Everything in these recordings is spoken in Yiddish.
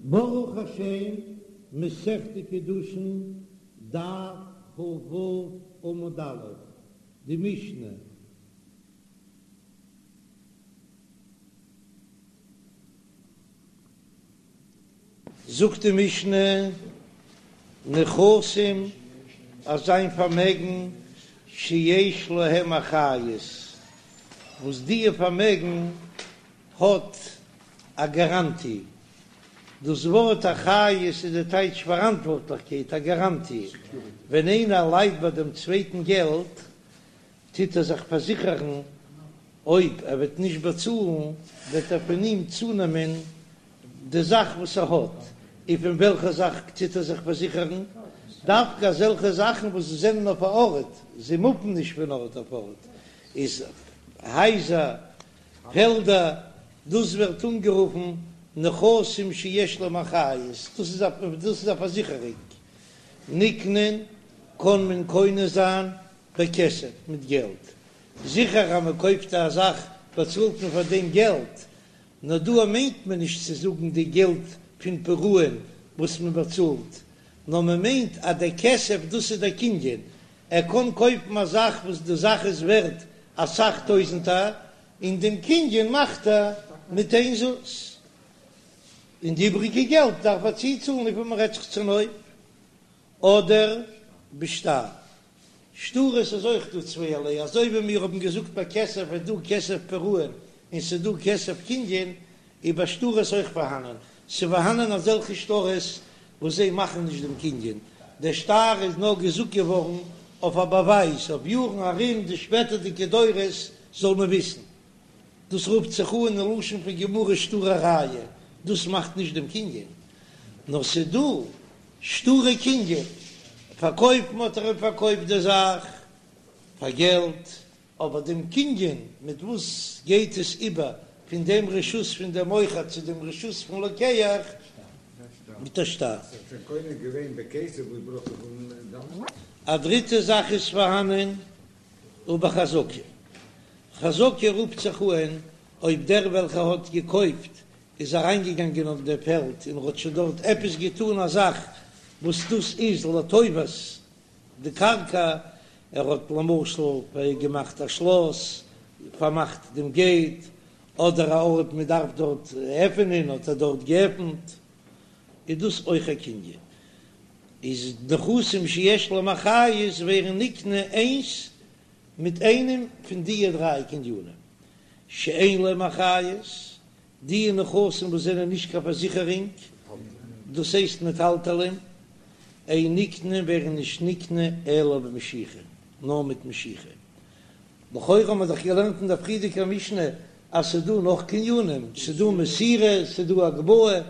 ברוך השם, מסכת קידושין, דף כ"ו עמוד א', די משנה. זאגט די משנה, נכסים אז זיין פארמעגן שיש להם אחריות, וואס דיע פארמעגן האט א גאראנטי, דאס ווארט אחריות איז די טייטש פאראנטווארטליכקייט, א גאראנטי, ווען איינער לייט ביי דעם צווייטן געלט טוט ער זיך פארזיכערן אויב ער וועט נישט באצאלן וועט ער פון אים צונעמען די זאך וואס ער האט, און פון וועלכע זאך טוט ער זיך פארזיכערן? דווקא אזעלכע זאכן וואס זענען אויף א ארט, זיי מופן נישט פון ארט אויף ארט, איז הייזער, פעלדער, דאס ווערט אנגערופן נכסים שיש להם אחריות, דאס איז א דאס איז א פארזיכערונג, נקנין קען מען קונה זיין בכסף מיט געלט, זיכער אז מען קויפט א זאך באצאלט מען פאר דעם געלט, נאר דא מיינט מען נישט צו זאגן די געלט פון פירעון וואס מען באצאלט, נאר מען מיינט אז דער כסף דאס איז דער קנין, ער קען קויפן א זאך וואס די זאך איז ווערט אסאך טויזענטער, און דעם קנין מאכט ער מיט איין זוז, און די איבריגע געלט דארף ער צוצאלן וויפיל מען רעדט זיך צונויף, אדער בשטר. שטרות איז אויך דא צווייערליי, אזוי ווי מיר האבן געזאגט ביי כסף איז דא כסף פירעון און ס'איז דא כסף קנין, איז ביי שטרות אויך פארהאנען, ס'איז פארהאנען אזעלכע שטרות וואס זיי מאכן נישט דעם קנין, דער שטר איז נאר געזאגט געווארן אויף א באווייז, אויף יארן ארום די שפעטערדיגע דורות זאל מען וויסן. דאס רופט זיך אן אין לשון פון גמרא שטרי ראיה, דאס מאכט נישט דעם קנין, נאר ס'איז דא שטרי קנין, פארקויפן האט ער אים פארקויפט די זאך פאר געלט, אבער דעם קנין מיט וואס גייט עס איבער פון דעם רשות פון דעם מוכר צו דעם רשות פון לוקח? מיט א שטר. א דריטע זאך איז פארהאנען ובחזקה. חזקה רופט זיך אהן אויב דער וועלכער האט געקויפט איז אריינגעגאנגען אויף דער פעלד און האט שוין דארט עפעס געטאן א זאך וואס דאס איז לטובת די קרקע, ער האט למשל געמאכט א שלאס, פארמאכט דעם געיט, אדער א ארט מען דארף דארט עפענען האט ער דארט געעפנט, איז דאס אויך א קנין. איז נכסים שיש להם אחריות ווערן נקנה איינס מיט איינעם פון דיע דריי קנינים שאין להם אחריות, די נכסים וואס זענען נישט קיין פארזיכערונג, דאס הייסט מטלטלין, אין נקנין ווערן נישט נקנה אלא במשיכה, נאר מיט משיכה. לכאורה האבן מיר דאך געלערנט אין דער פריערדיגער משנה אז ס'איז דא נאך קנינים, ס'איז דא מסירה, ס'איז דא הגבהה,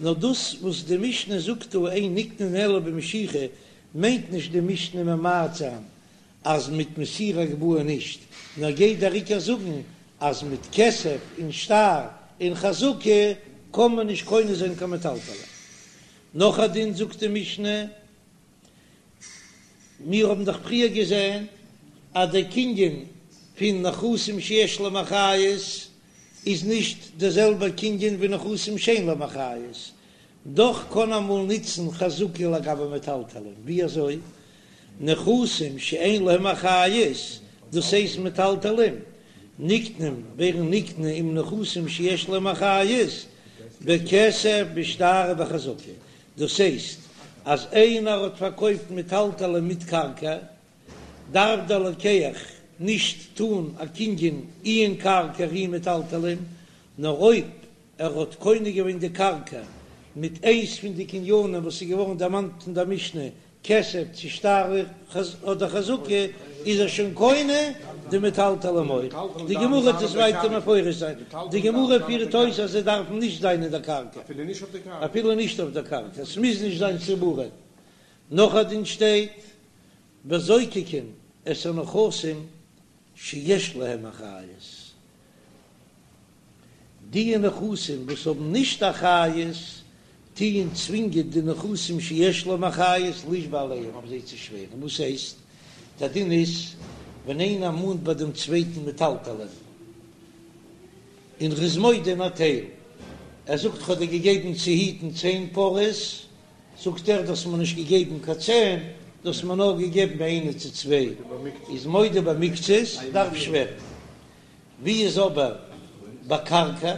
נאר דאס וואס די משנה זאגט דא אין נקנין אלא במשיכה מיינט נישט די משנה ממעט זיין אז מיט מסירה הגבהה נישט, נאר גייט דער עיקר זאגן אז מיט כסף און שטר און חזקה קען מען נישט קונה זיין קיין מטלטלין. נאך א דין זאגט די משנה, מיר האבן דאך פריער געזען אז דער קנין פון נכסים שיש להם אחריות איז נישט דער זעלבער קנין ווי נכסים שאין להם אחריות, דאך קען אמאל נוצן חזקה לגבי מטלטלין, ווי אזוי? נכסים שאין להם אחריות, דאס הייסט מטלטלין, נקנים ווערן נקנה עם נכסים שיש להם אחריות, בכסף בשטר ובחזקה, דאס הייסט אז איינער האט פארקויפט מטלטלין מיט קרקע, דארף דער לוקח נישט טאן א קנין אי אין קרקע אי מטלטלין, נאר אויב ער האט קונה געווען די קרקע מיט איינס פון די קנינים וואס איז געווארן דערמאנט אין דער משנה, כסף צו שטר אדער חזקה, איז ער שוין קונה די מטלטלין אויך. די גמרא וועט עס ווייטער מפרש זיין. די גמרא פירט אויס אז זיי דארפן נישט זיין אין דער קרקע, אפילו נישט אויף דער קרקע, עס מוז נישט זיין צבורים. נאך א דין שטייט, וזוקקין את הנכסים שיש להם אחריות. די נכסים וואס האבן נישט אחריות טוען צווינגען די נכסים שיש להם אחריות לישבע עליהם אויף זיי צו שווערן, וואס הייסט? דער דין איז ווען איינער מאנט ביי דעם צווייטן מטלטלין און ר'איז מודה אין א טייל. ער זאגט כ'האב דיר געגעבן צו היטן צען פרות, זאגט ער דו האסט מיר נישט געגעבן קיין צען, דו האסט מיר נאר געגעבן איינע צו צוויי, איז מודה במקצת, דארף שווערן. ווי איז אבער ביי קרקע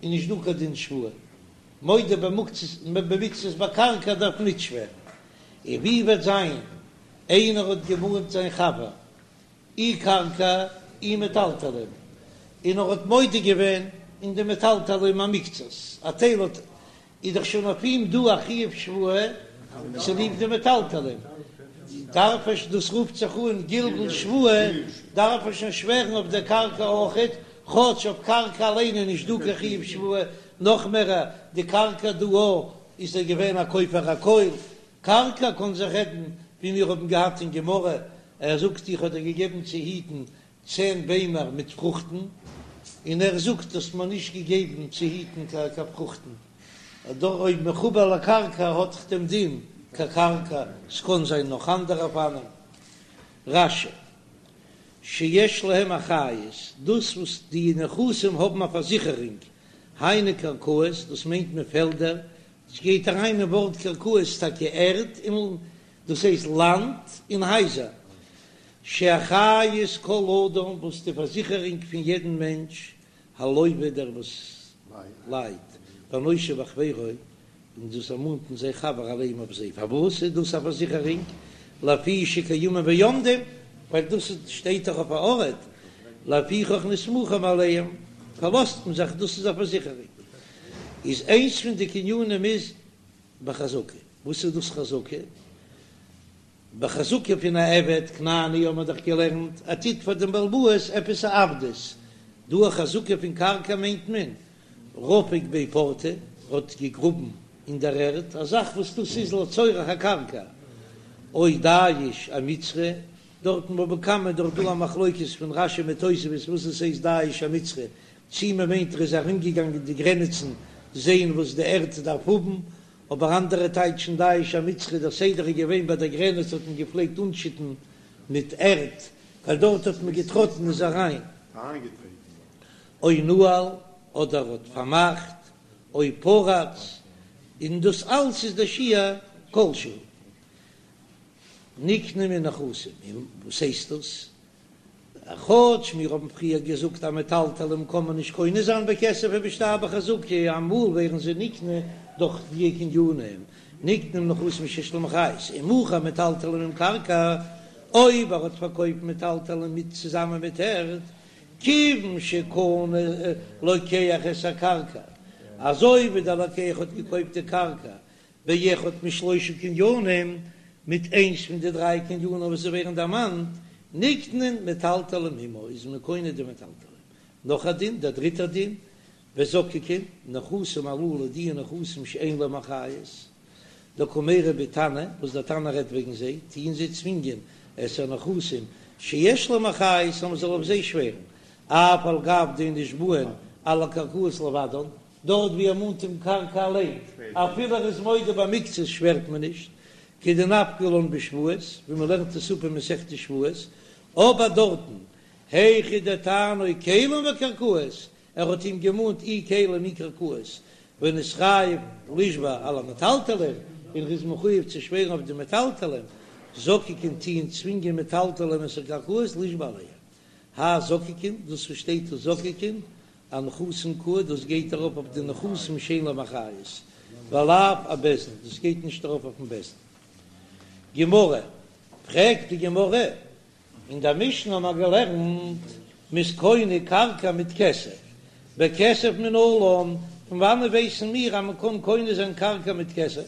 איז נישט דא קיין דין שבועה, מודה במקצת ביי קרקע דארף נישט שווערן. און ווי וועט זיין איינער האט געמאנט זיין חבר אי קרקע אי מטלטלין, און ער האט מודה געווען אין די מטלטלין א מקצת, א טייל האט, איז דאך שוין אויף אים דא א חיוב שבועה צוליב די מטלטלין, דארף ער, דאס רופט זיך אן גלגול שבועה, דארף ער שוין שווערן אויף דער קרקע אויכעט, כאטש אויף קרקע אליין איז נישט דא קיין חיוב שבועה, נאך מער די קרקע דא איז ער געווען א כופר הכל, קרקע קאן זיך רעדן ווי מיר האבן געהאט אין גמרא, ער זאגט איך האב דיר געגעבן צו היטן צען ביימער מיט פרוכטן, און ער זאגט האסט מיר נישט געגעבן צו היטן קיין פרוכטן, דא אויב מחובר לקרקע האט דאך דעם דין כקרקע, ס'קאן זיין נאך אנדערע אופנים. רש"י, שיש להם אחריות, דאס וואס די נכסים האבן א פארזיכערונג, היינו קרקעות, דאס מיינט מען פעלדער, ס'גייט אריין אין ווארט קרקעות טאקע ערד און דאס הייסט לאנד און הייזער, שאחריות כל אדם וואס די פארזיכערונג פון יעדן מענטש, הלוה דער וואס לייט, והנושה בחבירו, און דאס ער מאנט אין זיין חבר עליהם אויף זיי, פארוואס איז דאס א פארזיכערונג? לפי שקיימים ועומדים, ווייל דאס שטייט דאך אויף א ארט, לפיכך נסמכים עליהם, פארלאזט מען זיך דאס איז א פארזיכערונג. איז איינס פון די קנינים איז בחזקה, וואס איז דאס חזקה? בחזקה פון א עבד כנעני האבן מיר דאך געלערנט ער טוט פאר דעם בעל הבית עפעס א עבדות, דא א חזקה פון קרקע מיינט מען רפק ביה פורתא האט געגראבן אין דער ערד א זאך וואס דאס איז לצורך הקרקע, או דייש אמצרא, דארט אין בבא קמא איז דאך דא א מחלוקת פון רש"י מיט תוספות וואס עס הייסט דייש אמצרא, צי מען מיינט ער איז ארומגעגאנגען די גרעניצן זעהן וואס די ערד דארף האבן, אבער אנדערע טייטשן דייש אמצרא דער סדר איז געווען ביי דער גרעניץ האט מען געפלעגט אנשיטן מיט ערד ווייל דארט האט מען געטראטן איז אריין או נעל אדער האט פארמאכט או פרץ און דאס אלס איז דער שיעור כל שהוא נקנים מנכסים און וואס הייסט דאס כאטש מיר האבן פריער געזאגט אז מטלטלים קען מען נישט קונה זיין בכסף ובשטר בחזקה, אמאל ווערן זיי נקנה דורך די קנינים, נקנים נכסים שיש להם אחריות, אם מכר מטלטלין עם קרקע, אויב ער האט פארקויפט מטלטלין מיט צוזאמען מיט ערד, כיוון שקנה לוקח את הקרקע, אזוי ווי דער לוקח האט געקויפט די קרקע באחד משלושה קנינים, מיט איינס פון די דריי קנינים וואס ווערן דערמאנט, נקנין מטלטלין עמה, איז מען קונה די מטלטלין. נאך א דין, דער דריטער דין, וזוקקין, נכסים הללו, די נכסים שאין להם אחריות, דקא מיירי בהו תנא, וואס דער תנא רעדט וועגן זיי, טוען זיי צווינגען את הנכסים שיש להם אחריות אז מען זאל אויף זיי שווערן, אף על גב דאין נשבעין על הקרקעות לבדן, דארט ווי ער מאנט אים קרקע אליין, אפילו ער איז מודה במקצת שווערט מען נישט, כדנפקא לן בשבועות, ווי מען לערנט עס אפ אין מסכת שבועות, אבער דארטן, היכא דטענו כלים וקרקעות, ער האט אים געמאנט אי כלים אי קרקעות, ונתחייב לישבע על המטלטלין, און ער איז מחויב צו שווערן אויף די מטלטלין, זוקקין טוען צווינגען מטלטלין את הקרקעות לישבע עליהם. האי זוקקין, דאס וואס שטייט דא זוקקין, אנכסים קאי, דאס גייט ארויף אויף די נכסים שאין להם אחריות, ולאו אבית דין, דאס גייט נישט ארויף אויפן בית דין. גמרא, פרעגט די גמרא, אין דער משנה האבן מיר געלערנט, מ'איז קונה קרקע מיט כסף, בכסף מנלן, פון וואנעט ווייסן מיר אז מ'קען קונה זיין קרקע מיט כסף?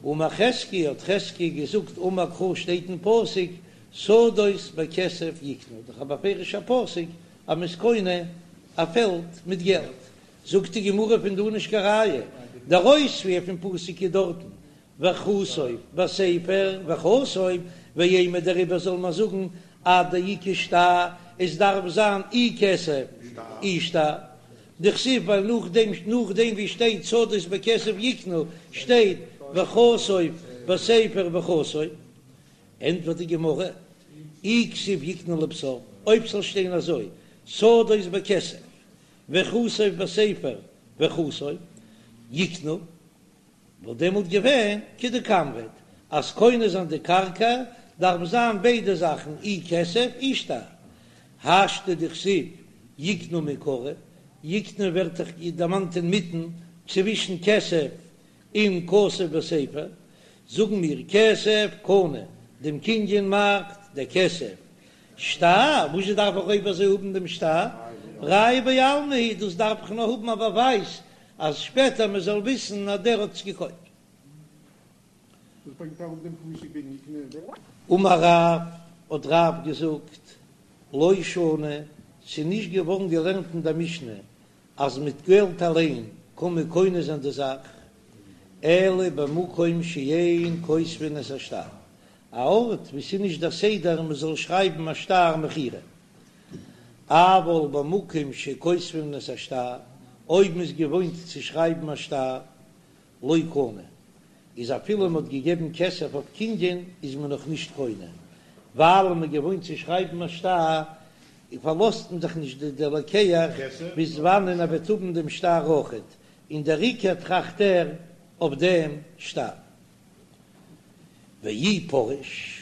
אמר חזקיה, האט חזקיה געזאגט, אמר קרא שטייט אין פסוק, שדות בכסף יקנו, דאך א בפירוש'ע פסוק אז מ'איז קונה א פעלד מיט געלט, זאגט די גמרא פון דא נישט קיין ראיה, דער אויספיר פון פסוק איז דארטן וכתוב בספר וחתום, ואימא דעריבער זאל מען זאגן עד דאיכא שטר, עס דארף זיין אי כסף אי שטר, דכתיב ווייל נאכדעם נאכדעם ווי שטייט שדות בכסף יקנו שטייט וכתוב בספר וחתום, ענטפערט די גמרא, אי כתיב יקנו לבסוף, אויב ס'זאל שטיין אזוי, שדות בכסף, וכתוב בספר וחתום יקנו, וואלט דעמאלט געווען כדקאמרת אז קונה זיין די קרקע דארף זיין ביידע זאכן אי כסף אי שטר, השתא דכתיב יקנו מעיקרא, יקנו ווערט דאך דערמאנט אינמיטן צווישן כסף און כתוב בספר, זאגן מיר כסף קנה, דעם קנין מאכט דער כסף, שטר, וואזשע דארף איך אויב אזוי האבן דעם שטר? ראיה בעלמא היא, דאס דארף איך נאר האבן א באווייז אז שפעטער מען זאל וויסן אז דער האט עס געקויפט. וואס ברענגט אראפ דעם פסוק וועגן יקנה? אמר רב, האט רב געזאגט, לא שנו, ס'איז נישט געווארן געלערנט אין דער משנה אז מיט געלט אליין קען מען קונה זיין די זאך, אלא במקום שאין כותבין את השטר, א ארט וואו ס'איז נישט דער סדר מען זאל שרייבן א שטר מכירה. אבל במקום שכותבין את השטר, אויב מ'איז געוואוינט צו שרייבן א שטר, לא קנה, איז אפילו מ'האט געגעבן כסף אויף קנין איז מען נאך נישט קונה, ווייל מ'איז געוואוינט צו שרייבן א שטר, פארלאזט מען זיך נישט די לוקח ביז וואנען ער וועט האבן דעם שטר אויכעט, און דער עיקר טראכט ער אויף דעם שטר. ואי פריש,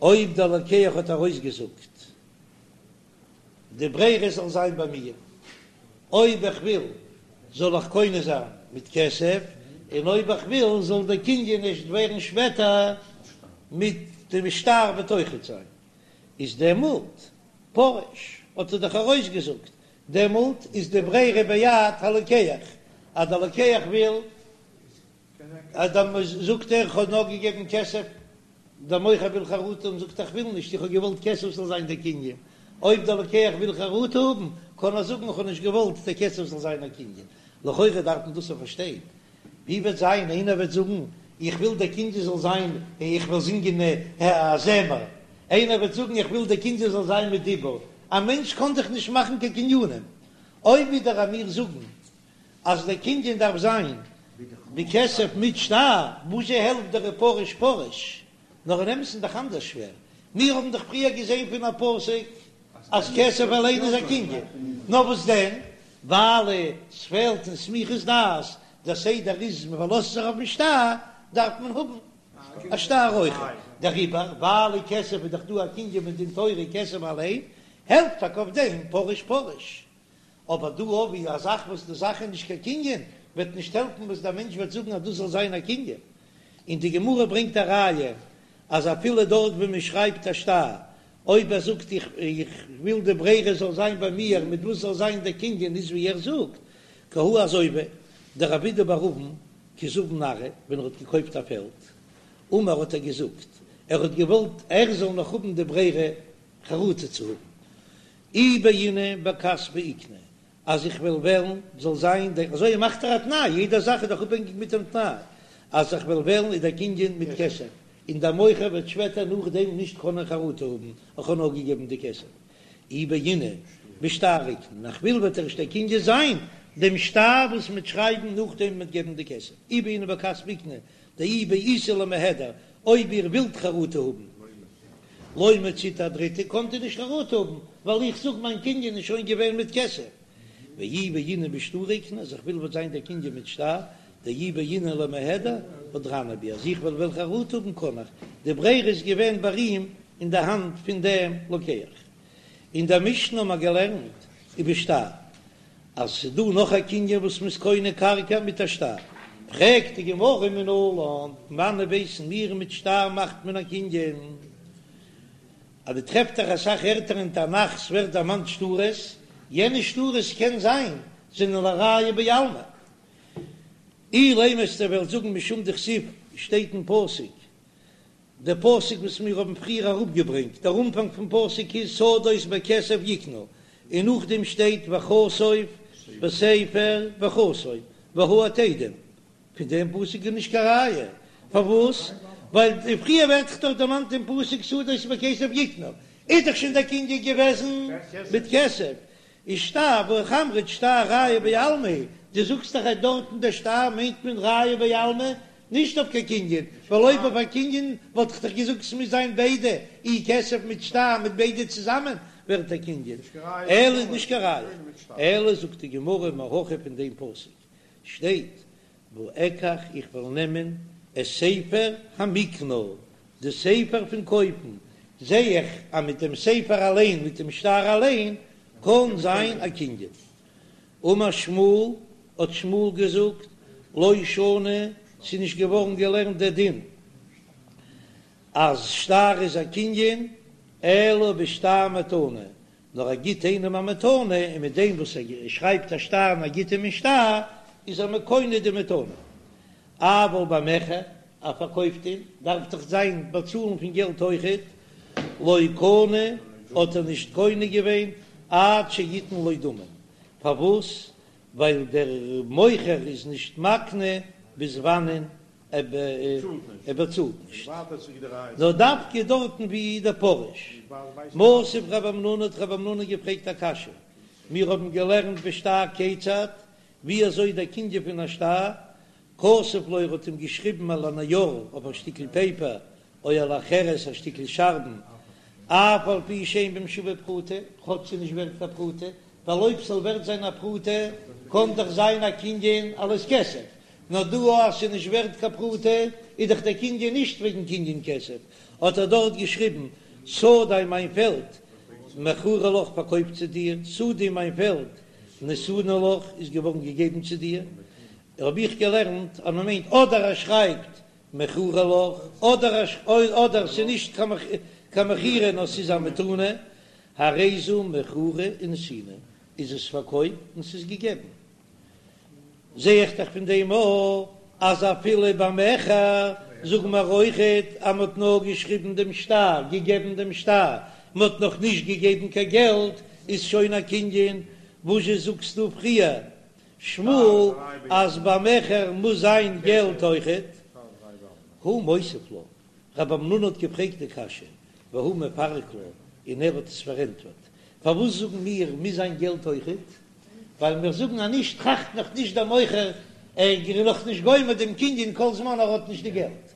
אויב דער לוקח האט ארויסגעזאגט די ברירה זאל זיין ביי מיר, אויב איך וויל זאל איך קונה זיין מיט כסף, און אויב איך וויל זאל דער קנין ערשט ווערן שפעטער מיט דעם שטר וועט אויכעט זיין, איז דעמאלט פריש האט ער דאך ארויסגעזאגט, דעמאלט איז די ברירה ביד הלוקח, אז דער לוקח וויל אז דאן זאגט ער איך האב נאר געגעבן כסף, דער מוכר וויל חרטה האבן זאגט ער איך וויל נישט איך האב געוואלט כסף זאל זיין דער קנין, אויב דער לוקח וויל חרטה האבן קען ער זאגן איך האב נישט געוואלט דער כסף זאל זיין א קנין, לכאורה דארף מען דאס פארשטיין, ווי וועט זיין איינער וועט זאגן איך וויל דער קנין זאל זיין איך וויל זינגען א זמר, איינער וועט זאגן איך וויל דער קנין זאל זיין מיט דיבור, א מענטש קען דאך נישט מאכן קיין קנינים, אויב ווידער אז מיר זאגן אז דער קנין דארף זיין בכסף מיט שטר, וואזשע העלפט דער פריש פריש? נאר אין אמת'ן דאך אנדערש שווער, מיר האבן דאך פריער געזען פון א פסוק אז כסף אליין איז א קנין, נאר וואס דען ווייל עס פעלט אין סמיכות דעת, דער סדר איז מען פארלאזט זיך אויפן שטר, דארף מען האבן א שטר אויך, דעריבער ווייל כסף איז דאך דא א קנין מדין תורה כסף אליין, העלפט טאקע אויף דעם פריש פריש. אבער דא אויף א זאך וואס די זאך איז נישט קיין קנין, וועט נישט העלפן וואס דער מענטש וועט זאגן אז דאס זאל זיין א קנין. און די גמרא ברענגט א ראיה אז אפילו דארט וואו מען שרייבט א שטר, אויב ער זאגט איך איך וויל די ברירה זאל זיין ביי מיר מיט וואס זאל זיין דער קנין איז ווי ער זאגט, כי הא אזוי ווי דרב אידי בר אבין כי זבין ארעא ווען ער האט געקויפט א פעלד, אמר האט ער געזאגט ער האט געוואלט ער זאל נאך האבן די ברירה חרטה צו האבן, אי בעינא בכספא איקני, אז איך וועל וועלן זאל זיין דער, אזוי מאכט ער א תנאי, יעדע זאך איז דאך אפהענגיק מיט דעם תנאי, אז איך וועל וועלן איז דער קנין מיט כסף, און דער מוכר וועט שפעטער נאכדעם נישט קענען חרטה האבן, איך האב נאר געגעבן די כסף. אי בעינא בשטר איקני, און איך וויל וועט ערשט דער קנין זיין דעם שטר וואס מ'וועט שרייבן נאכדעם מ'וועט געבן די כסף, אי בעינא בכספא איקני, דאי בעיתו למיהדר, אויב איר ווילט חרטה האבן, לא מציתו אהדריתו, קאנט איר נישט חרטה האבן, ווייל איך זאג מיין קנין איז שוין געווען מיט כסף. ואי בעינא בשטרא איקני, אז איך וויל וועט זיין דער קנין מיט שטר, דאי בעינא למיהדר, הדרנא בי, אז איך וועל וועלן חרטה האבן קאן איך, די ברירה איז געווען ביי אים אין די האנט פון דעם לוקח. אין דער משנה האבן מיר געלערנט ובשטר. אז ס'איז דא נאך א קנין וואס מ'איז קונה קרקע מיט א שטר, פרעגט די גמרא מנלן, פון וואנען ווייסן מיר מיט שטר מאכט מען א קנין? אז דו טרעפט דאך אסאך ערטער אין תנך ס'ווערט דערמאנט שטרות, יענע שטרות קען זיין זענען לראיה בעלמא. אילימא וועסטו וועלן זאגן משום דכתיב שטייט אין פסוק דער פסוק וואס מיר האבן פריער אראפגעברענגט, דער אנפאנג פון פסוק איז שדות בכסף יקנו, און נאכדעם שטייט וכתוב בספר וחתום והעד עדים, פון דעם פסוק איז נישט קיין ראיה, פארוואס? ווייל פריער ווערט דאך דארט דערמאנט אין פסוק שדות בכסף יקנו, איז דאך שוין דער קנין געוועזן מיט כסף, איז שטר והא אמרת שטר ראיה בעלמא, דו זאגסט דאך אז דארטן דער שטר מיינט מען ראיה בעלמא, נישט אויף קיין קנין, ווייל אויב אויף א קנין וואלט איך דאך געזאגט ס'מוז זיין ביידע, אי כסף מיט שטר מיט ביידע צוזאמען, ווערט א קנין, אלא איז נישט קיין ראיה, אלא זאגט די גמרא מהכא פון דעם פסוק שטייט ואקח איך וועל נעמען את ספר המקנה, די ספר פון קויפן, זע איך אז מיט דעם ספר אליין, מיט דעם שטר אליין, קען זיין א קנין. אמר שמואל, האט שמואל געזאגט, לא שנו, ס'איז נישט געווארן געלערנט דער דין אז שטר איז א קנין, אלא בשטר מתנה, נאר ער גיט איינעם א מתנה, און מיט דעם וואס ער שרייבט א שטר און ער גיט אים אין שטר, איז ער מקנה די מתנה. אבל במכר, ער פארקויפט אים, דארף דאך זיין באצאלן פון געלט אויכעט, לא קנה, האט ער נישט קונה געווען עד שיתן לו דמים, פארוואס? ווייל דער מוכר איז נישט מקנה ביז וואנען ער באצאלט נישט, נאר דווקא דארטן ווי דפריש. מתיב רב המנונא האט רב המנונא געפרעגט א קשיא, מיר האבן געלערנט בשטר כיצד, ווי אזוי דער קנין פון א שטר, כתב לו ער האט אים געשריבן על הנייר אויף א שטיקל פעיפער, או על החרס א שטיקל שארבן, אף על פי שאין בם שווה פרוטה, כאטש ס'איז נישט ווערט קיין פרוטה, ווייל אויב ס'זאל ווערט זיין א פרוטה קען דאך זיין א קנין אלס כסף, נאר דא אז ס'איז נישט ווערט קיין פרוטה איז דאך דער קנין נישט וועגן קנין כסף, האט ער דארט געשריבן שדי מיין פעלד מכורה לך פארקויפט צו דיר, שדי מיין פעלד נתונה לך איז געווארן געגעבן צו דיר, האב איך געלערנט אז מ'מיינט אדער ער שרייבט מכורה לך אדער אדער ס'איז נישט קיין מכירה נאר ס'איז א מתנה, הרי זו מכורה ונתונה, איז עס פארקויפט און ס'איז געגעבן. זע איך דאך פון דעם אויך אז אפילו במכר זאגן מיר אויכעט אז מ'האט נאר געשריבן דעם שטר, געגעבן דעם שטר, מ'האט נאך נישט געגעבן קיין געלט, איז שוין א קנין, וואזשע זאגסטו פריער שמואל אז במכר מוז זיין געלט אויכעט? הוא מותיב לה, רב המנונא האט געפרעגט די קשיא, והוא מפרק לה, און ער האט עס פארענטפערט, פארוואס זאגן מיר מוז זיין געלט אויכעט? ווייל מיר זאגן אז נישט טראכט נאך נישט דער מוכר, ער איז נאך נישט גומר דעם קנין כל זמן ער האט נישט די געלט.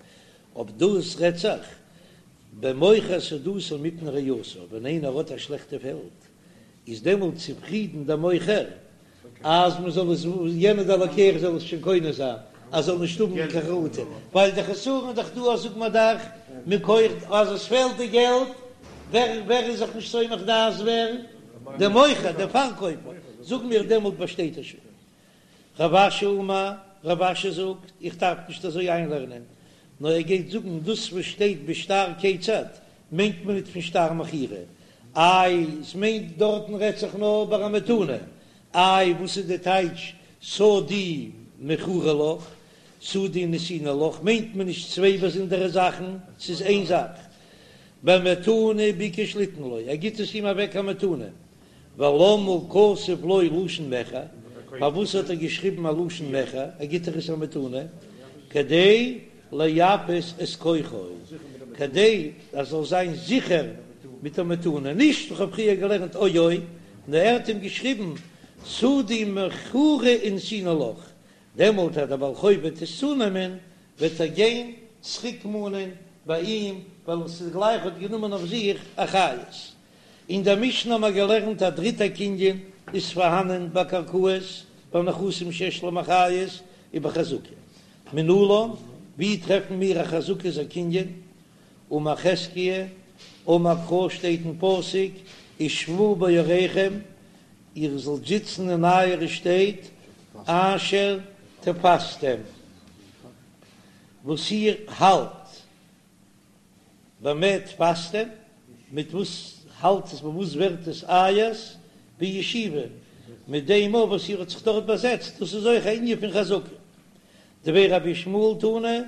אויב דאס רעדט זיך במוכר שדתו מפני רעתו, ווען איינער האט א שלעכטע פעלד איז דעמאלט צופרידן דער מוכר אז מען זאל עס, יענער דער לוקח זאל עס שוין קונה זיין, אז זאל נישט האבן קיין חרטה, ווייל די חסרון איז דאך דא אז זאגט מען דאך מכח אז עס פעלט די געלט, ווער ווער איז זיך נישט סומך דעת ווער? דער מוכר, דער פארקויפער, זאגן מיר דעמאלט באשטייט ער שוין. רב אשי אמר, רב אשי זאגט, איך דארף נישט אזוי איינלערנען, נאר ער גייט זאגן דאס וואס שטייט בשטר כיצד מיינט מען ניט פון שטר מכירה, איי עס מיינט דארטן רעדט זיך נאר ביי א מתנה, איי וואס איז די טייטש שדי מכורה לך, שדי נתונה לך, מיינט מען נישט צוויי באזונדערע זאכן, ס'איז איין זאך, במתנה ביקש ליתן לו, ער גיט עס אים אוועק א מתנה, ולמה כתב לו לשון מכר, פארוואס האט ער געשריבן א לשון מכר, ער גיט דאך עס א מתנה, כדי לייפות את כוחו, כדי ער זאל זיין זיכער מיט א מתנה, נישט איך האב פריער געלערנט או או, נאר ער האט אים געשריבן שדי מכורה ונתונה לך, דעמאלט אז דער בעל חוב וועט עס צונעמען, וועט ער גיין צוריק מאנען ביי אים, ווייל עס איז גלייך האט גענומען אויף זיך אחריות. אין דער משנה האבן מיר געלערנט א דריטע קנין איז פארהאנען ביי קרקעות ביי נכסים שיש להם אחריות ובחזקה. מנלן, ווי טרעפן מיר א חזקה איז א קנין? אמר חזקיה, אמר קרא שטייט אין פסוק ושבו בעריכם, איר זאלט זיצן אין אייערע שטעט אשר תפשתם, וואס איר האלט. במה תפשתם, מיט וואס האלט עס, מיט וואס ווערט עס אייערס, בישיבה, מיט דעם אויף וואס איר האט זיך דארט באזעצט, דאס איז אויך א ענין פון חזקה. דבי רבי ישמעאל תנא,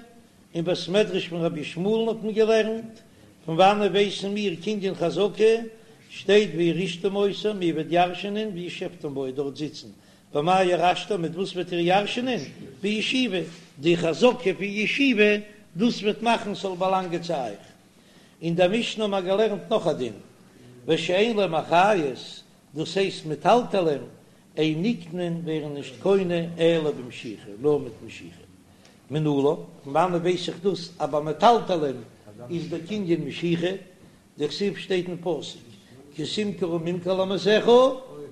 אין בית מדרש פון רבי ישמעאל'ן האט מען געלערנט, פון וואנעט ווייסן מיר קנין חזקה, שטייט וירשתם אותה, איר וועט ירש'ענען, וישבתם בה, דארט זיצן, במה ירשתם, מיט וואס וועט איר ירש'נען? בישיבה, די חזקה פון ישיבה, דאס וועט מאכן ס'זאל באלאנגען צו אייך. אין דער משנה האבן מיר געלערנט נאך א דין, ושאין להם אחריות, דאס הייסט מטלטלין, אין נקנין ווערן נישט קונה אלא במשיכה, נאר מיט משיכה. מנלן, פון וואנעט ווייס איך דאס אז ביי מטלטלין איז דער קנין משיכה? דכתיב שטייט אין פסוק. כי תמכרו ממכר לעמיתך,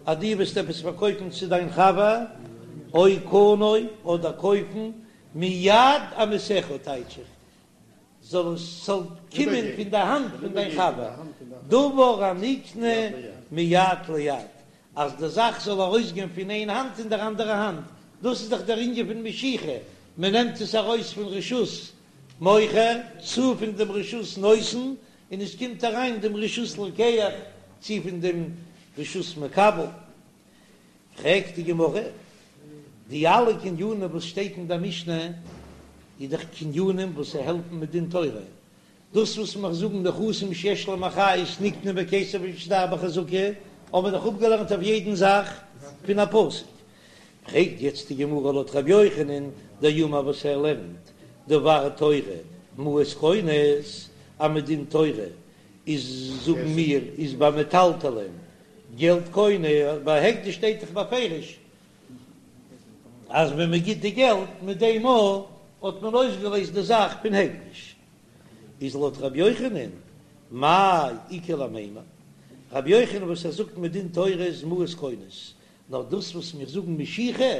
אז דו וועסט עפעס פארקויפן צו דיין חבר, או קנה, אדער קויפן, מיד עמיתך טייטש איך, זאל עס זאל קומען פון די האנט פון דיין חבר, דבר הנקנה מיד ליד, אז די זאך זאל ארויסגיין פון איין האנט אין דער אנדערע האנט, דאס איז דאך דער ענין פון משיכה, מען נעמט עס ארויס פון רשות מוכר צו פון דעם רשות נותן, און עס קומט אריין דעם רשות לוקח צו פון דעם רשות מקבל. פרעגט די גמרא, די אלע קנינים וואס שטייט אין דער משנה איז דאך קנינים וואס העלפן מדין תורה, דאס וואס מיר זאגן נכסים שיש להם אחריות נקנה בכסף ובשטר בחזקה, האבן מיר דאך אפגעלערנט אויף יעדן זאך פון א פסוק. פרעגט יעצט די גמרא לויט ר' יוחנן דאמר וואס ער לערנט דבר תורה מעות קונות, אז מדין תורה איז זאגן מיר איז ביי מטלטלין געלט קונה, ביי הקדש שטייט דאך בפירוש אז ווען מען גיט די געלט מיט דעם מאל האט מען אויסגעלעזט די זאך פון הקדש, איז לויט ר' יוחנן מאי איכא למימר, ר' יוחנן וואס ער זאגט מדין תורה איז מעות קונות, נאר דאס וואס מיר זאגן משיכה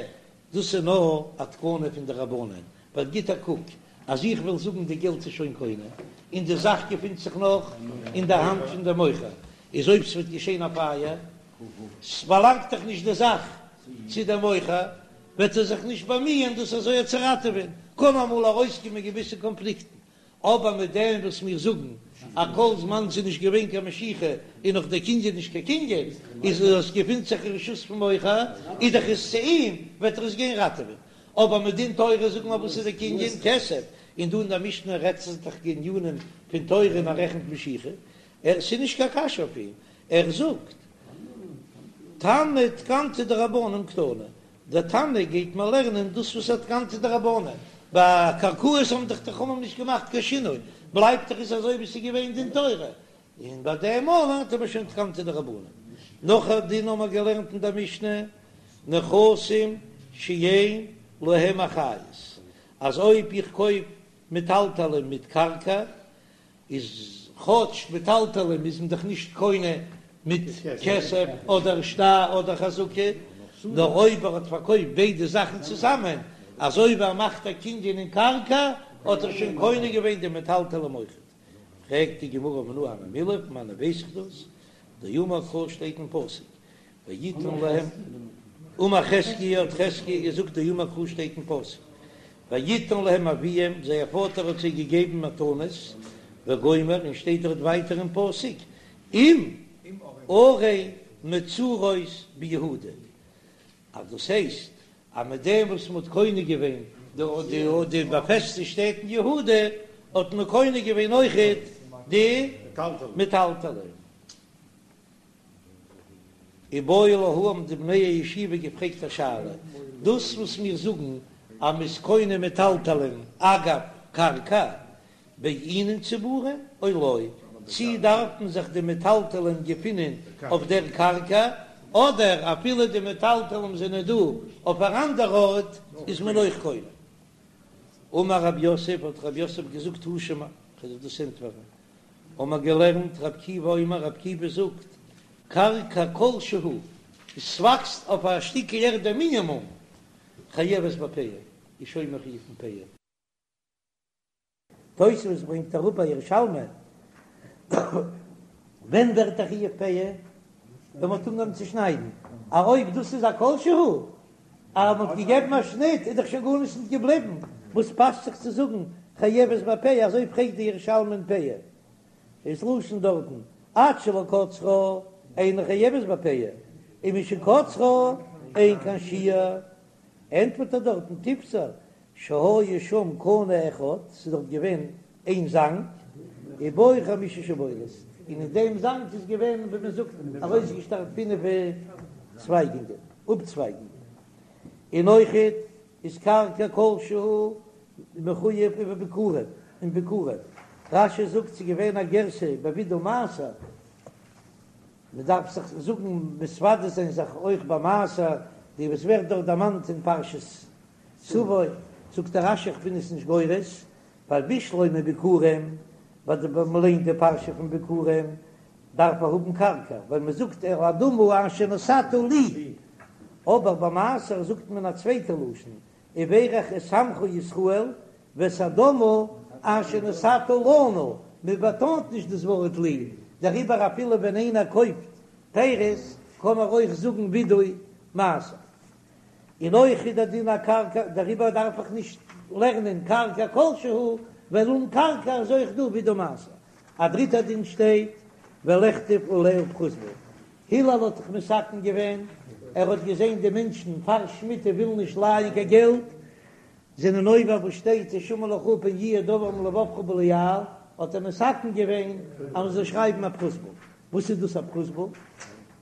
דאס איז נאר א תקנה פון די רבנן, ווייל גיט א קוק אז איך וועל זאגן די געלט איז שוין קונה און די זאך געפינט זיך נאך אין די האנט פון די מוכר, איז אויב ס'וועט געשען א פייער, ס'באלאנגט דאך נישט די זאך צו די מוכר, וועט ער זיך נישט באמיען דאס אזוי צו ראטעווען, קען אמאל ארויסקומען געוויסע קאנפליקטן, אבער מיט דעם וואס מיר זאגן אז כל זמן ס'איז נישט געווען קיין משיכה איז נאך דער קנין נישט קיין קנין, איז עס געפינט זיך אין רשות פון מוכר, איז דאך עס צו אים, וועט ער עס גיין ראטעווען. אבער מדין תורה זאגן מיר וואס איז דער קנין? כסף. און דא אין דער משנה רעדט זיך דאך קנינים פון תורה און ער רעכנט משיכה. ער, ס'איז נישט קיין קשיא אויף אים, ער זאגט תנא תקנתא דרבנן קתני, דער תנא גייט מיר לערנען דאס וואס א תקנתא דרבנן, ביי קרקעות האבן דאך די חכמים נישט געמאכט קיין שינוי, בלייבט דאך עס אזוי ווי עס איז געווען דין תורה, און ביי דעם מאל לערנט מען שוין תקנתא דרבנן. נאך א דין האבן מיר געלערנט אין דער משנה, נכסים שאין להם אחריות, אז אויב איך קויף מטלטלין מיט קרקע, איז כאטש מטלטלין איז מען דאך נישט קונה מיט כסף אדער שטר אדער חזקה, נאר אויב ער האט פארקויפט ביידע זאכן צוזאמען, אז אויב ער מאכט א קנין אין קרקע האט ער שוין קונה געווען די מטלטלין אויכעט. פרעגט די גמרא מנא הני מילי, פון וואנען ווייס איך דאס? דאמר קרא שטייט אין פסוק ויתן להם, אמר חזקיה האט חזקיה געזאגט דאמר קרא שטייט אין פסוק ויתן להם אביהם זייער פאטער האט זיי געגעבן מתנות וגומר און שטייט דארט ווייטער אין פסוק עם ערי מצורות ביהודה אז דאס הייסט אז מיט דעם וואס מען האט קונה געווען די באפעסטע שטעט אין יהודה האט מען קונה געווען אויכעט די מטלטלין. איבעיא להו האבן די בני הישיבה געפרעגט א שאלה, דאס וואס מיר זאגן אז מ'איז קונה מטלטלין אגב קרקע בעינן צבורין או לא, צי דארפן זיך די מטלטלין געפינען אויף דער קרקע, אדער אפילו די מטלטלין זענען דא אויף אן אנדער ארט איז מען אויך קונה. אמר רב יוסף, האט רב יוסף געזאגט תא שמע, כ'וועל דיר דאס ענטפערן, האבן מיר געלערנט רבי עקיבא אומר, רבי עקיבא זאגט, קרקע כל שהוא, עס וואקסט אויף א שטיקל ערד א מינימום, חייבת בפאה, איז שוין מחויב אין פאה. תוספות ברענגט אראפ א ירושלמי, ווען ווערט א חיוב פאה? ווען מ'האט אנגעהויבן צו שניידן, א אויב דאס איז א כל שהוא, אז מ'האט געגעבן א שניט איז דאך שוין גארנישט נישט געבליבן, וואס פאסט זיך צו זאגן חייבת בפאה, אזוי פרעגט די ירושלמי אין פאה, איז לשון דארטן עד שלא קצרה אינה חייבת בפאה, ומשקצרה אין כאן שיור, ענטפערט ער דארטן תיפתר שהיה שם קנה אחד, ס'איז דארט געווען איין זאנג, ובו חמשה שבולות, און אין דעם זאנג איז געווען ווי מען זאגט ארויסגעשטארט פינף צווייגונגען, אפצווייגונגען, און אויכעט איז קרקע כל שהוא מחויב ובביכורים, אין ביכורים, רש"י זאגט ס'איז געווען א גירסא בווידוי מעשר, מען דארף זיך זאגן מתוודה זיין זיך אויך ביי מעשר, די וואס ווערט דארט דערמאנט אין פרשת תבוא, זאגט דער רש"י איך בין עס נישט גורס, ווייל בשלמא ביכורים, ווייל די ווען מ'ליינט די פרשה פון ביכורים. דארף ער האבן קרקע, ווייל מען זאגט אל האדמה אשר נתת לי, אבער ביי מעשר זאגט מען א צווייטע לשון, וברך את עמך ישראל ואת האדמה אשר נתת לנו, מען באטאנט נישט דאס ווארט לי, דעריבער אפילו ווען איינער קויפט פירות קען ער אויך זאגן וידוי מעשר. און אויך איז דער דין א קרקע, דעריבער דארף איך נישט לערנען קרקע כלשהו, ווייל אן קרקע איז אויך דא וידוי מעשר. א דריטער דין שטייט ולכתוב עליה פרוזבול. הלל האט דאך מתקן געווען, ער האט געזען די מענטשן פאר שמיטה ווילן נישט לייען קיין געלט, זענען עובר וואס שטייט השמר לך פן יהיה דבר עם לבבך בליעל, האט ער מתקן געווען אז מען זאל שרייבן א פרוזבול. וואס איז דאס א פרוזבול?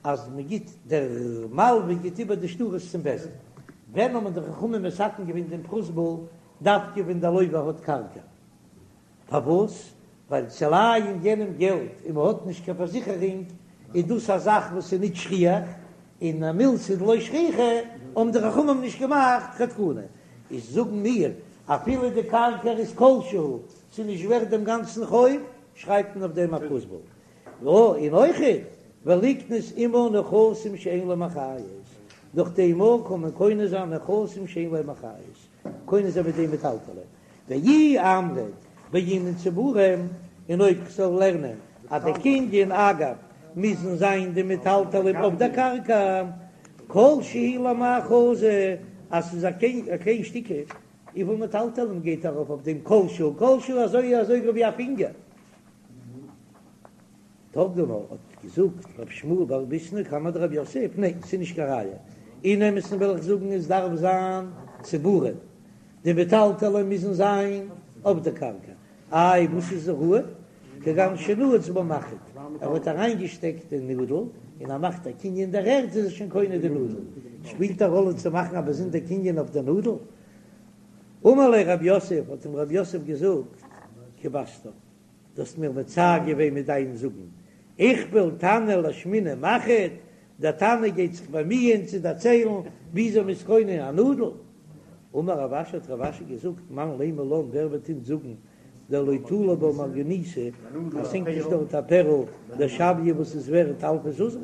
אז מען גיט, דער מלווה גיט איבער די שטרות צום בית דין. ווען האבן די חכמים מתקן געווען דעם פרוזבול? דווקא ווען דער לווה האט קרקע. פארוואס? ווייל צו לייען יענעם געלט און מען האט נישט קיין פארזיכערונג איז דאס א זאך וואס איז נישט שכיח, און א מילתא דלא שכיחא האבן די חכמים נישט געמאכט קיין תקנה. איז זאגן מיר, אפילו די קרקע איז כלשהו, ס'איז נישט ווערט דעם גאנצן חוב, שרייבט מען אויף דעם א פרוזבול. און אויכעט ולקנות עמה נכסים שאין להם אחריות, דורך דעם אויך קען מען קונה זיין נכסים שאין להם אחריות, קונה זיין מיט דעם מטלטלין, ואי אמרת בעינן צבורים, און אויב כ'זאל לערנען אז די קנין אגב מוזן זיין די מטלטלין אויף דער קרקע, כל שהוא למאי חזי, אז ס'איז א קליין שטיקל, וויפיל מטלטלין גייט ארויף אויף דעם כל שהוא, כל שהוא אזוי אזוי ווי א פינגער. תרגמה האט געזאגט רב שמואל בר ביסנא קמיה דרב יוסף, ניין ס'איז נישט קיין ראיה, אין אמת'ן וועל איך זאגן עס דארף זיין צבורים, די מטלטלין מוזן זיין אויף די קרקע, איי וואס איז ראוי? כגון שנעץ בה מחט, ער האט אריינגעשטעקט די נאדל און ער מאכט א קנין אין דער ערד איז ער שוין קונה די נאדל, שפילט א ראלע צו מאכן א באזונדער קנין אויף די נאדל? אמר ליה רב יוסף, האט אים רב יוסף געזאגט, כיבסתן. דו האסט מיר מצער געווען מיט דיין זאגן, איכפל תנא לאשמועינן מחט, דער תנא גייט זיך באמיען צו דערציילן וויאזוי מ'איז קונה א נאדל. אמר רב אשי האט רב אשי געזאגט, מאן לימא לן ווער וועט אונז זאגן דלא תלי בה מרגניתא אז ס'הענגט נישט דארט א פערל דשויא וואס איז ווערט אלפא זוזי,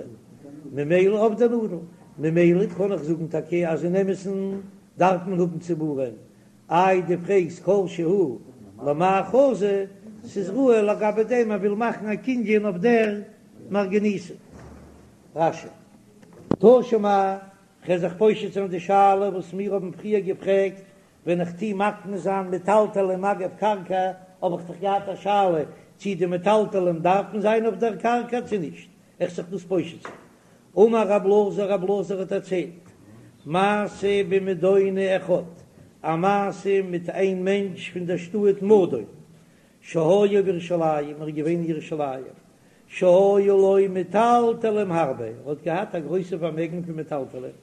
ממילא אויף די נאדל, ממילא קען איך זאגן טאקע אז אין אמת'ן דארף מען האבן צבורים, איי דו פרעגסט כל שהוא למאי חזי, ס'איז ראוי לגבי דעם ער וויל מאכן א קנין אויף דער מרגניתא. רש"י. תא שמע, כ'וועל זיך פושט זיין די שאלה וואס מיר האבן פריער געפרעגט, ווען איך טוה מקנה זיין מטלטלים אגב קרקע, האב איך דאך געהאט א שאלה צי די מטלטלים דארפן זיין אויף דער קרקע צו נישט, איך זיך דאס פושט זיין. אמר רב אלעזר, רב אלעזר האט דערציילט, מעשה במדוני אחד, א מעשה מיט איין מענטש פון דער שטאט מדון, שהיה בירושלים, ער איז געווען אין ירושלים, שהיו לו מטלטלים הרבה, ער האט געהאט א גרויסע פארמעגן פון מטלטלים,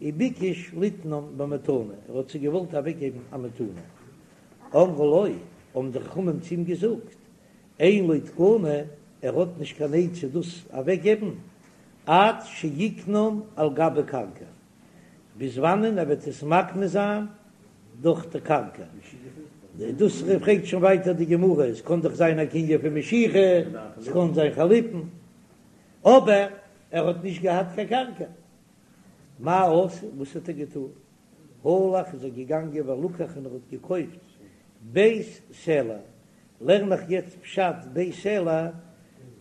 וביקש ליתנם במתנה, ער האט זיי געוואלט אוועקגעבן א מתנה, אמרו לו, האבן די חכמים צו אים געזאגט, אין לו תקנה, ער האט נישט קיין עצה דאס אוועקגעבן, עד שיקנם על גבי קרקע, ביז וואנען ער וועט עס מקנה זיין דורך די קרקע. דאס פרעגט שוין ווייטער די גמרא, עס קען דאך זיין א קנין פון משיכה, עס קען זיין חליפין, אבער ער האט נישט געהאט קיין קרקע, מה עשה, וואס האט ער געטון? הלך איז ער געגאנגען ולקח און ער האט געקויפט בית סלע, לערן איך יעצט פשט בית סלע,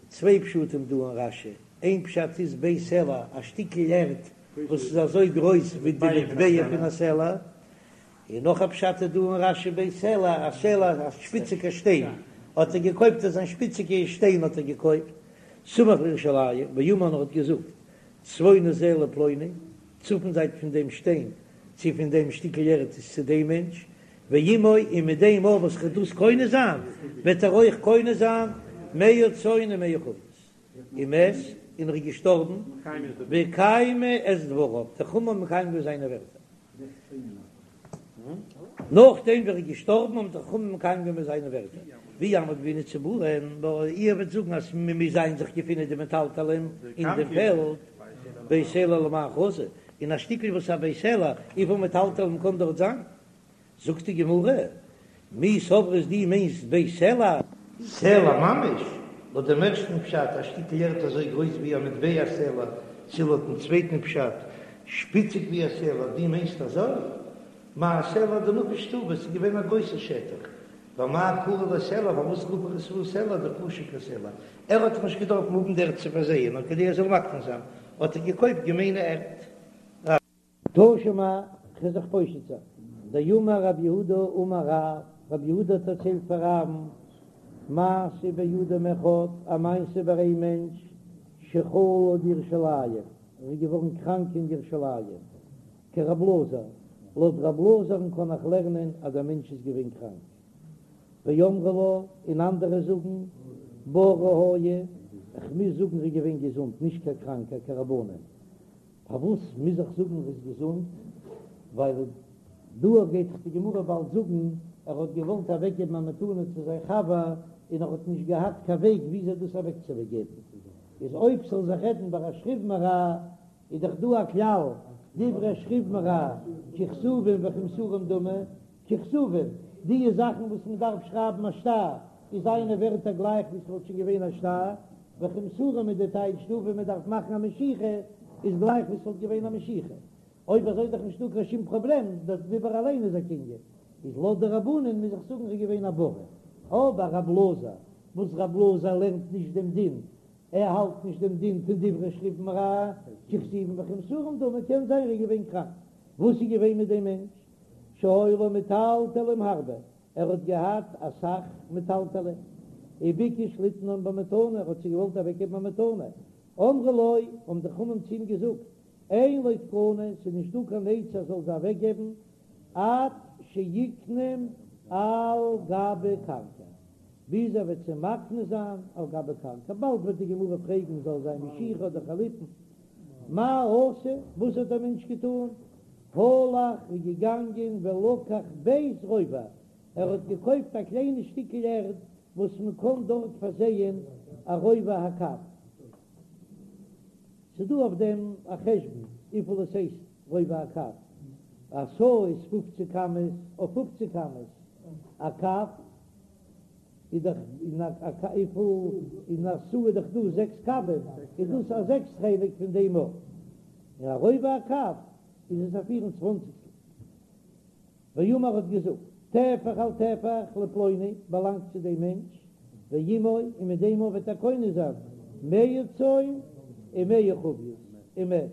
צוויי פשטים דא אין רש"י, איין פשט איז בית סלע א שטיקל ערד וואס איז אזוי גרויס ווי די מטבע פון א סלע, און נאך א פשט איז דא אין רש"י בית סלע, א סלע א שפיציגע שטיין, האט ער געקויפט אזא שפיציגע שטיין האט ער געקויפט, סמוך לירושלים, ואמר און ער האט געזאגט, צפוני זה לפלוני, צפון זייט פון דעם שטיין, צו פון דעם שטיקל ערד איז צו דעם מענטש, ועמו און מיט דעם אויך וואס כ'וועל דאס קונה זיין, וועט ער אויך קונה זיין מאה צאן און מאה חביות. ומת, און ער איז געשטארבן, וקיימו את דבריו, די חכמים האבן מקיים געווען זיינע ווערטער. נאכדעם ווי ער איז געשטארבן האבן די חכמים מקיים געווען זיינע ווערטער, ואי אמרת בעינן צבורין, נאר איר וועט זאגן אז מען מוז זיין זיך געפינען די מטלטלין אין דעם פעלד, בית סלע למאי חזי, און א שטיקל וואס א בית סלע, וויפיל מטלטלין קען דארט זיין? זאגט די גמרא, מי סברת דו מיינסט בית סלע? סלע ממש? לויט דעם ערשטן פשט, א שטיקל ערד אזוי גרויס ווי א מטבע סלע, צו לויטן צווייטן פשט, שפיציג ווי א סלע, דו מיינסט אזוי? מאי סלע דנפיש טובא, ס'איז געווען א גרויסע שטח. ואמאי קרי ליה סלע, פארוואס רוף איך עס אן סלע דחשיב כסלע? ער האט דאך נישט געדארפט האבן די ערד צו פארזייען, נאר כדי ער זאל מקנה זיין, האט ער געקויפט געמיינע ערד. תא שמע, כ'וועל זיך פושט זיין. דאמר רב יהודה אמר רב, רב יהודה האט דערציילט פאר רב'ן, מעשה באדם אחד, א מעשה ביי איין מענטש, שחלה בירושלים, ער איז געווארן קראנק אין ירושלים, כרב אלעזר, לויט רב אלעזר'ן קען איך לערנען אז דער מענטש איז געווען קראנק. ואמרי לה, און אנדערע זאגן, בריא היה, כ'מוז זאגן ער איז געווען געזונט, נישט קיין קראנקער, כרבנן. פארוואס מוז איך זאגן ער איז געזונט? ווייל דא גייט דאך די גמרא באלד זאגן ער האט געוואלט אוועקגעבן א מתנה צו זיין חבר און ער האט נישט געהאט קיין וועג וויאזוי דאס אוועקצוגעבן, איז אויב ס'זאל זיך רעדן ביי א שכיב מרע איז דאך דא א כלל דברי שכיב מרע ככתובים וכמסורים דמי, ככתובים, די זאכן וואס מען דארף שרייבן א שטר איז זיינע ווערטער גלייך ווי ס'וואלט שוין געווען א שטר, וכמסורים איז די טייטש דא ווען מען דארף מאכן א משיכה איז גלייך ווי ס'וואלט געווען א משיכה. אויב אזוי איז דאך נישטא קיין שום פראבלעם, דער דיבור אליין איז א קנין. איז לויט די רבנן מוז איך זאגן ר'איז געווען א בריא. אבער רב אלעזר, וואס רב אלעזר לערנט נישט דעם דין, ער האלט נישט דעם דין פון דברי שכיב מרע ככתובים וכמסורים דמי, קען זיין ר'איז געווען קראנק. וואס איז געווען מיט דעם מענטש? שהיו לו מטלטלים הרבה, ער האט געהאט אסאך מטלטלים, וביקש ליתנם במתנה, ער האט זיי געוואלט אוועקגעבן א מתנה, אמרו לו, האבן די חכמים צו אים געזאגט, אין לו תקנה, ס'איז נישט דא קיין עצה ער זאל זיי אוועקגעבן, עד שיקנם על גבי קרקע, ביז ער וועט זיי מקנה זיין על גבי קרקע, באלד וועט די גמרא פרעגן זאל זיין משיכה אדער חליפין, מה עשה, וואס האט דער מענטש געטון, הלך איז געגאנגען ולקח בית רובע, ער האט געקויפט א קליינע שטיקל ערד וואס מען קען דארט פארזייען א רובע הקב, ס'איז דא אויף דעם א חשבון וויפיל עס הייסט רובע הקב, א סאה איז פופציג אמות אויף פופציג אמות, א קב איז דאך אין א וויפיל אין א סאה איז דאך דא זעקס קבים, איז דאס א זעקס חלק פון דעם אויך, און א רובע הקב איז עס א פיר און צוואנציגסטל. ואמר האט געזאגט, טפח על טפח לפלוני באלאנגט צו דעם מענטש, ועמו און מיט דעם וועט ער קונה זיין מאה צאן ומאה חביות ומת,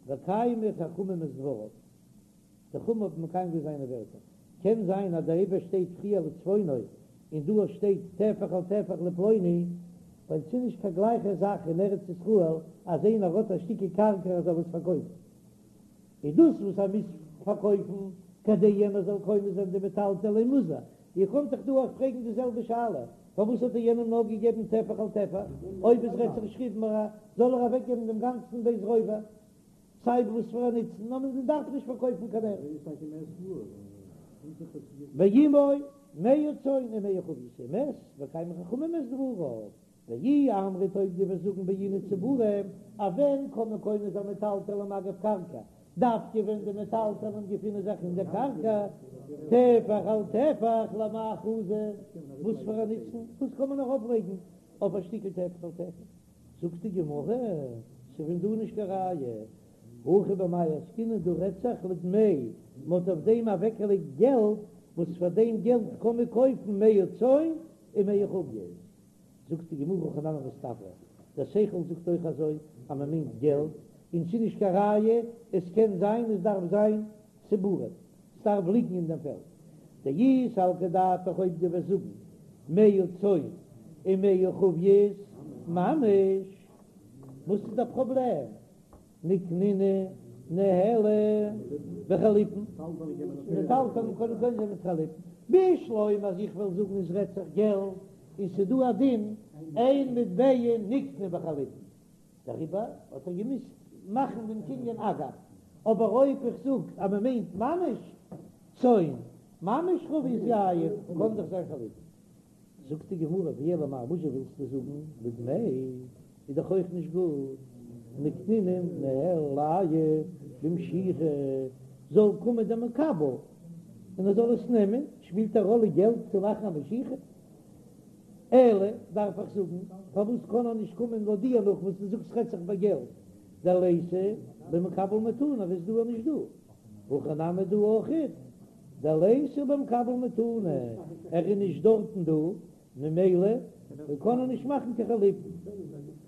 וקיימו חכמים את דבריו, די חכמים האבן מקיים געווען זיינע ווערטער, קען זיין אז דעריבער שטייט פריער לצפונו און דא שטייט טפח על טפח לפלוני, ווייל ס'איז נישט קיין גלייכע זאך אין ארץ ישראל אז איינער האט א שטיקל קרקע ער זאל עס פארקויפן, איז דאס וואס ער מוז פארקויפן כדי יענער זאל קונה זיין די מטלטלין מוז ער. איר קענט דאך דא אויך פרעגן די זעלבע שאלה, פארוואס האט ער יענעם נאר געגעבן טפח על טפח, אויב עס רעדט זיך שכיב מרע זאל ער אוועקגעבן דעם גאנצן בית רובע, סיי וואס פאר א נוצן, נאר מען דארף נישט פארקויפן קיין ערד. ועמו מאה צאן ומאה חביות ומת וקיימו חכמים את דבריו, ואי אמרת אויב דו וועסט זאגן בעינן צבורים, אז ווען קען מען קונה זיין מטלטלים אגב קרקע, דווקא ווען די מטלטלים געפינען זיך אין דער קרקע, טפח על טפח למאי חזי, וואס פאר א נוצן, וואס קען מען ארויפלייגן אויף א שטיקל טפח על טפח? זאגט די גמרא, ס'פון דא נישט קיין ראיה, הכא במאי עסקינן דא רעדט זיך לדמי, מ'האט אויף דעם אוועקגעלייגט געלט, וואס פאר דעם געלט קען מען קויפן מאה צאן ומאה חביות. זאגט די גמרא הכי נמי מסתברא, דער שכל זאגט אויך אזוי אז מען מיינט געלט, און ס'איז נישט קיין ראיה, עס קען זיין עס דארף זיין צבורים, ס'דארף ליגן אין דעם פעלד. דאי סלקא דעתך אויב דו וועסט זאגן מאה צאן ומאה חביות ממש, וואס איז דער פראבלעם? ניקנינהו ניהלי בחליפין, מטלטלין קען מען קונה זיין מיט חליפין, בשלמא אז איך וועל זאגן עס רעדט זיך געלט און ס'איז דא א דין אין מטבע נקנה בחליפין, דעריבער האט ער געמוזט מאכן דעם קנין אגב, אבער אויב איך זאג אז מען מיינט ממש צאן, ממש חבית יין, קען דאך זיין חליפין. זאגט די גמרא, ואלא מאי וואזשע ווילסטו זאגן לדמי איז דאך אויך נישט גוט, ניקנינהו ניהלייהו במשיכה, זאל קומען דער מקבל און ער זאל עס נעמען, שפילט א ראלע געלט צו מאכן א משיכה? אלא דארף איך זאגן, פארוואס קען ער נישט קומען לויט דיר נאך וואס דו זאגסט רעדט זיך ביי געלט, דליתא במקבל מתנה וואס דא איז נישט דא, הכא נמי דא אויכעט, דליתא במקבל מתנה, ער איז נישט דארטן דא, ממילא קען ער נישט מאכן קיין חליפין.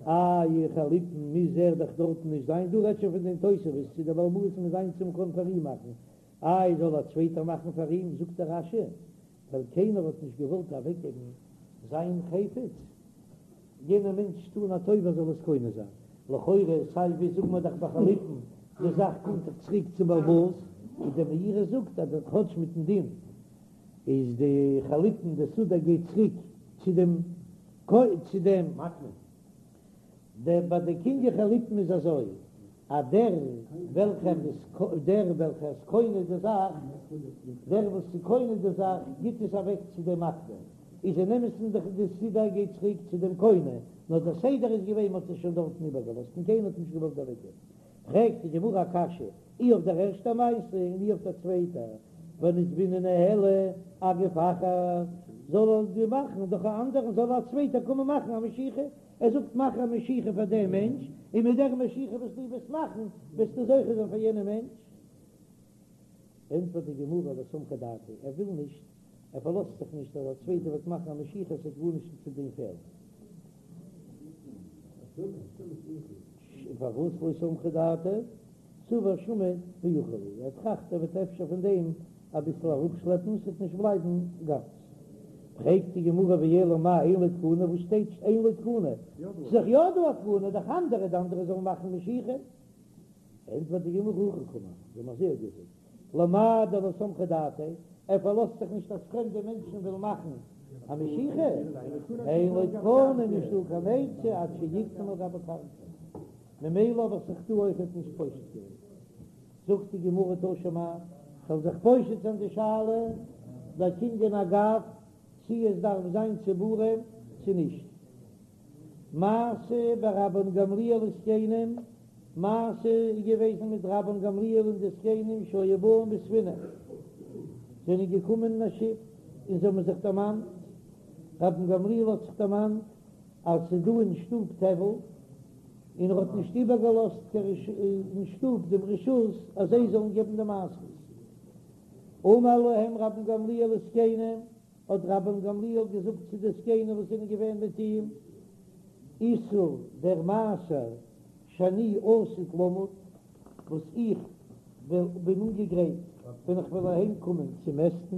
איי חליפין מוז ער דאך דארטן נישט זיין, דא רעדט שוין פון דעם תוספות צו דער בעל הבית מוז זיין צו מ'קען פאר אים מאכן, איי זאל א צווייטער מאכן פאר אים, זאגט דער רש"י, ווייל קיינער האט נישט געוואלט אוועקגעבן זיין חפץ, יענער מענטש טון א טובה זאל עס קונה זיין, לכאורה סיי ווי זאגן מיר דאך ביי חליפין די זאך קומט דאך צוריק צום בעל הבית, איז דער מאירי זאגט אז כאטש מיטן דין איז די חליפין די סודר גייט צוריק צו דעם צו דעם דער ביי די קנין חליפין איז אזוי אז דער וועלכער איז דער וועלכער איז קונה די זאך דער וואס איז קונה די זאך גיט עס אוועק צו דעם מקנה איז אין אמת'ן דאך די סודר גייט צוריק צו דעם קונה נאר דער סדר איז געווען מ'האט עס שוין דארטן איבערגעלאזט און קיינער האט נישט געוואלט אוועקגעבן פרעגט די גמרא א קשיא אי אויף דער ערשטער מעשה און אי אויף דער צווייטער, ונצבינהו ניהלי אגוף אחר, זאל ער די מאכן דורך א אנדערן, זאל א צווייטער קומען מאכן א משיכה, ער זאגט מאך א משיכה פאר דעם מענטש, און מיט דער משיכה וואס דו וועסט מאכן וועסטו זוכה זיין פאר יענעם מענטש. ענטפערט די גמרא לא סמכא דעתיה, ער וויל נישט, ער פארלאזט זיך נישט אז א צווייטער וועט מאכן א משיכה, עס וועט גארנישט צו דעם פעלן. פארוואס לא סמכא דעתיה? סבר שמיט ואכיל להו, ער טראכט ער וועט אפשר פון דעם אביסל אראפשלעפן, ס'וועט נישט בלייבן גאנץ. פרעגט די גמרא ואלא מאי אין לו תקנה, וואס שטייט אין לו תקנה? ס'איז דאך יא דא א תקנה, דורך אנדערע, די אנדערע זאלן מאכן משיכה. ענטפערט די גמרא הכי קאמר, זיי האבן אזוי געזאגט, למאי דלא סמכא דעתיה, ער פארלאזט זיך נישט אז פרעמדע מענטשן ווילן מאכן א משיכה, אין לו תקנה, נישטא קיין עצה עד שיקטום על גבי קרקע. ממילא האב איך זיך דא אויכעט נישט פושט געווען. זאגט די גמרא תא שמע, כ'וועל זיך פושט זיין די שאלה ביי קנין אגב צי עס דארף זיין צבורים צו נישט. מעשה ברבן גמליאל וזקנים, מעשה איז געוועזן מיט רבן גמליאל און די זקנים שהיו באים בספינה, זענען געקומען אין א שיף און זיי האבן זיך דערמאנט, רבן גמליאל האט זיך דערמאנט אז ס'איז דא אין שטוב טבל, און ער האט נישט איבערגעלאזט אין שטוב דעם רשות אז זיי זאלן געבן די מעשרות. אמר להם רבן גמליאל לזקנים, האט רבן גמליאל געזאגט צו די זקנים וואס זענען געווען מיט אים, עישור דער מעשר שאני עתיד למוד, וואס איך בין אנגעגרייט ווען איך וועל אהיים קומען צו מעסטן,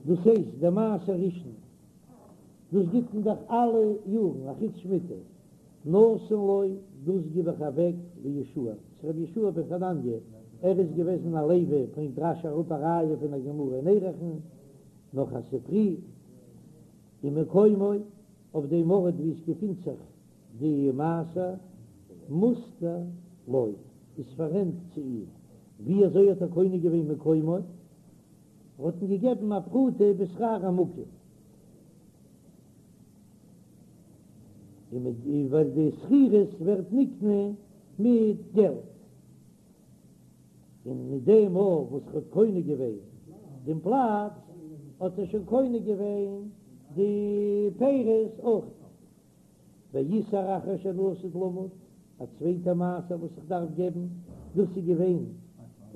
דאס הייסט דער מעשר ראשון, דאס גיט מען דאך אלע יארן אחוץ שמיטה, נתון לו, דאס גיב איך אוועק ליהושע, צו רבי יהושע בן חנניה, ער איז געוועזן א לוי, ברענגט רש"י אראפ א ראיה פון א גמרא אין ערכין, נאך א ספרי, ומקומו, אויף דעם ארט וואו עס געפינט זיך די מעשר, מושכר לו, איז פאררענט צו אים, ווי אזוי האט ער קונה געווען מקומו? ער האט אים געגעבן א פרוטה בשכר המקום, און מיט ווייל די שכירות ווערט נקנה מיט געלט, און מיט דעם מאל וואס ער האט קונה געווען דעם פלאץ, האט ער שוין קונה געווען די פירות אויך. ועישור אחר שאני עתיד למוד, א צווייטע מעשר וואס איך דארף געבן, דאס איז געווען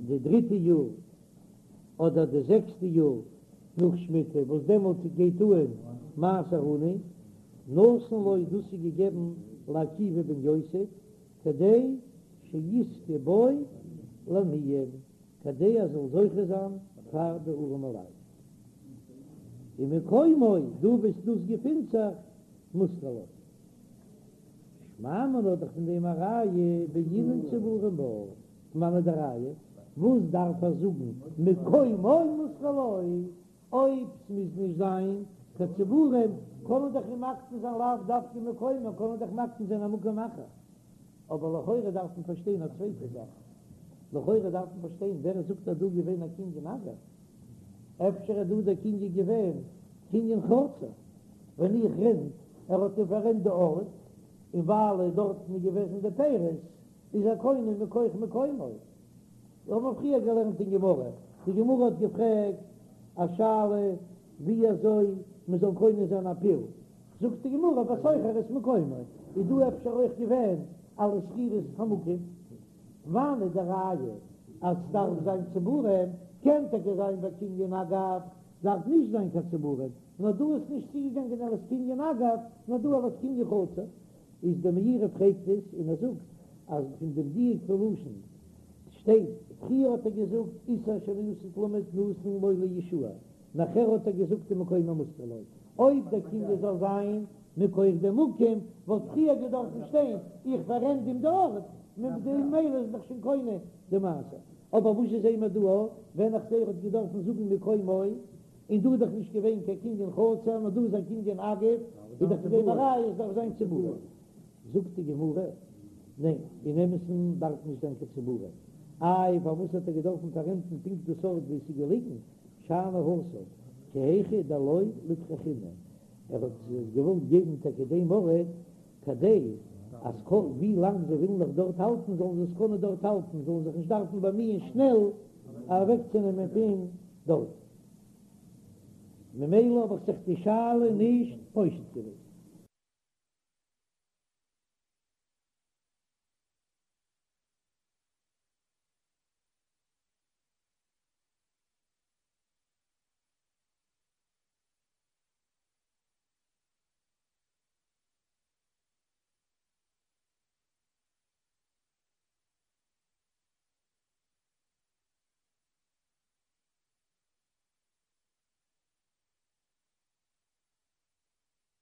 די דריטע יאר אדער די זעקסטע יאר נאך שמיטה, וואס דעמאלט גייט אן מעשר עני, נתון לו, דאס איז געגעבן לעקיבא בן יוסף, כדי שיזכה בו לעניים, כדי ער זאל זוכה זיין פאר די ארעמע לייט. ומקומו, דא וואו דאס געפינט זיך, מושכר לו. שמע מינה האט דאך פון דעם א ראיה בעינן צבורים בה, פון וואנעט די ראיה? וואס דארף ער זאגן מקומו מושכר לו? אויב ס'מוז נישט זיין קיין צבורים קען מען דאך אים מקנה זיין לאו דווקא מקומו, קען מען דאך מקנה זיין א מקום אחר. אבער לכאורה דארף מען פארשטיין א צווייטע זאך, לכאורה דארף מען פארשטיין ווער זאגט אז דא געווען א קנין אגב? אפשר איז דא דער קנין געווען קנין חצר, ווען איך רענט, ער האט אים פאררענט די ארט, און ווייל דארטן איז געוועזן די פירות, איז ער קונה מכח מקומו. מיר האבן פריער געלערנט אין גמרא, די גמרא האט געפרעגט א שאלה ווי אזוי. מען זאל קונה זיין א פיל, זאגט די גמרא בסוחר את מקומו, איז דא אפשר אויך געווען אלס שכירות המקום? וואנעט די ראיה אז סדארף זיין צבורים? קען טאקע זיין ביי קנין אגב דארף נישט זיין קיין צבורים, נאר דא איז נישט צוגעגאנגען אלס קנין אגב, נאר דא אלס קנין חצר. איז די מאירי פרעגט עס און ער זאגט אז פון דעם דיוק פון לשון שטייט, פריער האט ער געזאגט עישור שאני עתיד למד נתון לו ליהושע, נאכער האט ער געזאגט ומקומו מושכר לו. אויב דער קנין זאל זיין מכח דעם מקום וואלט פריער געדארפן שטיין איך פאררענט אים די ארט, ממילא איז דאך שוין קונה די מעשר. אבער וואס זעען מיר דא ווען איך זעה ער האט געדארפן זאגן מקומו, און דא איז דאך נישט געווען קיין קנין חצר נאר דא איז א קנין אגב, איז דאך פון דעם א ראיה עס דארף זיין צבורים. זאגט די גמרא, ניין, אין אמת'ן דארף נישט זיין קיין צבורים. איי פארוואס האט ער געדארפן פאררענטן פונקט דאס ארט וואו עס איז געליגן? שאני התם, כי היכי דלא ליטרחינהו, ער האט עס געוואלט געבן טאקע דעם ארט כדי אז כל ווי לאנג זיי ווילן נאך דארט האלטן זאלן זיי עס קענען דארט האלטן, זאלן זיך נישט דארפן באמיען שנעל אוועקצונעמען פון דארט. ממילא האב איך זיך די שאלה נישט פושט געווען.